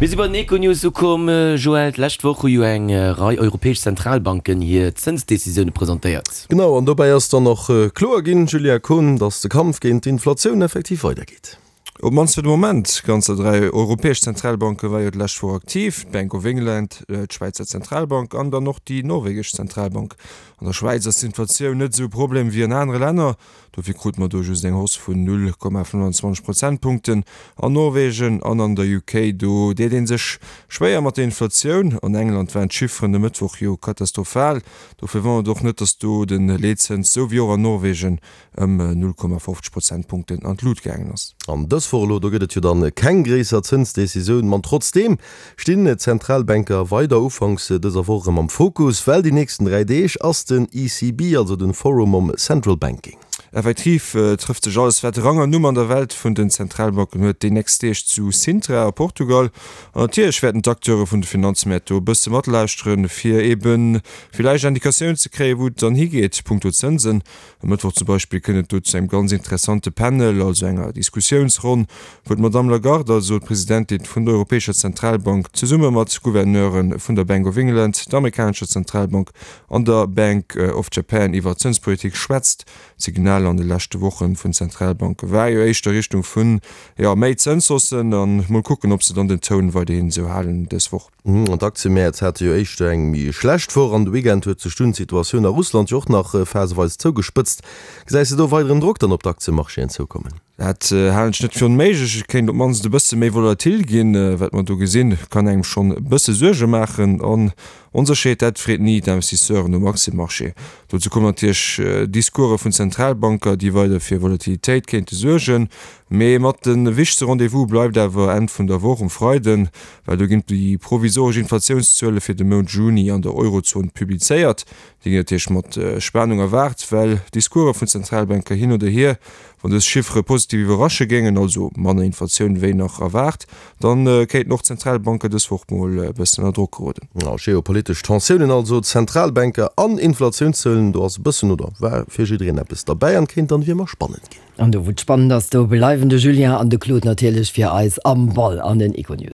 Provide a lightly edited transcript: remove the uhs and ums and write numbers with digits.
Mir si bei den Econews ukomm. Joël, d'lescht Woch hu jo eng Rei europäesch Zentralbanken hir Zënsdecisioune presentéiert. Genau, an dobäi ass dann och kloer ginn, Julia Kohn, datt de Kampf géint d'Inflatioun effektiv weidergeet. Op d'mannst fir de Moment. Ganzer 3 europäesch Zentralbanke war jo d'lescht Woch aktiv, d'Bank of England, d'Schwäizer Zentralbank an dann och déi norwegesch Zentralbank. An der Schwäiz ass d'Inflatioun net esou e Problem wéi an anere Länner. Dofir krute mer do just eng Hausse vun 0,25 Prozentpunkten. An Norwegen an an der UK, do deet ee sech schwéier mat der Inflatioun. An England waren d'Chifferen de Mëttwoch jo katastrophal. Dofir wonnert et och net, datt do de Leetzëns, sou wéi och an Norwegen, ëm 0,50 Prozentpunkten an d'Lut gaangen ass. An dës Woch elo, do gëtt et jo dann keng gréisser Zënsdecisioun, ma trotzdeem stinn d'Zentralbanker weider ufanks dëser Woch erëm am Fokus, well déi nächsten 3 Deeg ass den ECB, also den Forum om Central Banking. Effektiv trëfft sech alles wat Rang an Numm an der Welt vun den Zentralbanken huet déi nächst Deeg zu Sintra a Portugal. An natierlech wäerten d'Acteure vun de Finanzmäert do e bësse matlauschteren, fir ebe villäicht Indikatioun ze kréien, wou et dann higeet punkto Zënsen. E Mëttwoch zum Beispill kënnt et do zu engem ganz interessante Panel, also enger Diskussiounsronn, wou d'Madamm Lagarde, also d'Presidentin vun der Europäescher Zentralbank, zesumme mat Gouverneure vun der Bank of England, der amerikanescher Zentralbank an der Bank of Japan iwwer d'Zënspolitik schwätzt. D'Signal an de leschte Woche vun Zentralbanke war jo éischter Richtung vun, jo, méi Zënshaussen. A mol kucken, ob se dann den Toun weiderhin esou halen dës Woch. An d'Aktiëmäert hate jo éischter eng méi schlecht Woch an de Weekend huet sech dunn d'Situatioun a Russland jo och nach phaseweis zougespëtzt. Gesäis de do weideren Drock dann op d'Aktiëmarchéen zoukommen? Dat halen ech net fir onméiglech. Et kéint op d'mannst e bësse méi volatil ginn. Wat mer do gesinn, kann engem schonn e bësse Suerge maachen. An Onsécherheet, dat freet ni d'Investisseuren um Aktiëmarché. Dozou kommen natierlech Discourse vun Zentralbanker, déi weider fir Volatilitéit kéinte suergen. Mee mat de wichtegste Rendez-vous bleift awer Enn vun der Woch um Freiden, well do ginn déi provisoresch Inflatiounszuele fir de Mount Juni an der Eurozon publizéiert. Déi ginn natierlech mat Spanung erwaart, well Discourse vun Zentralbanker hin oder hier, wann dës Chiffere positiv iwwerrasche géingen, also manner Inflatioun wéi nach erwaart, da kéinten och d'Zentralbanker dës Woch mol e bëssen ënner Drock geroden. Geopolitesch Tensiounen also, Zentralbanker an Inflatiounszuelen, do ass e bëssen oder war fir jiddereen eppes derbäi an kéint dann wéi ëmmer spannend ginn. An do wou et spannend ass, do bleiwen de Julien an de Claude natierlech fir eis am Ball an den Econews.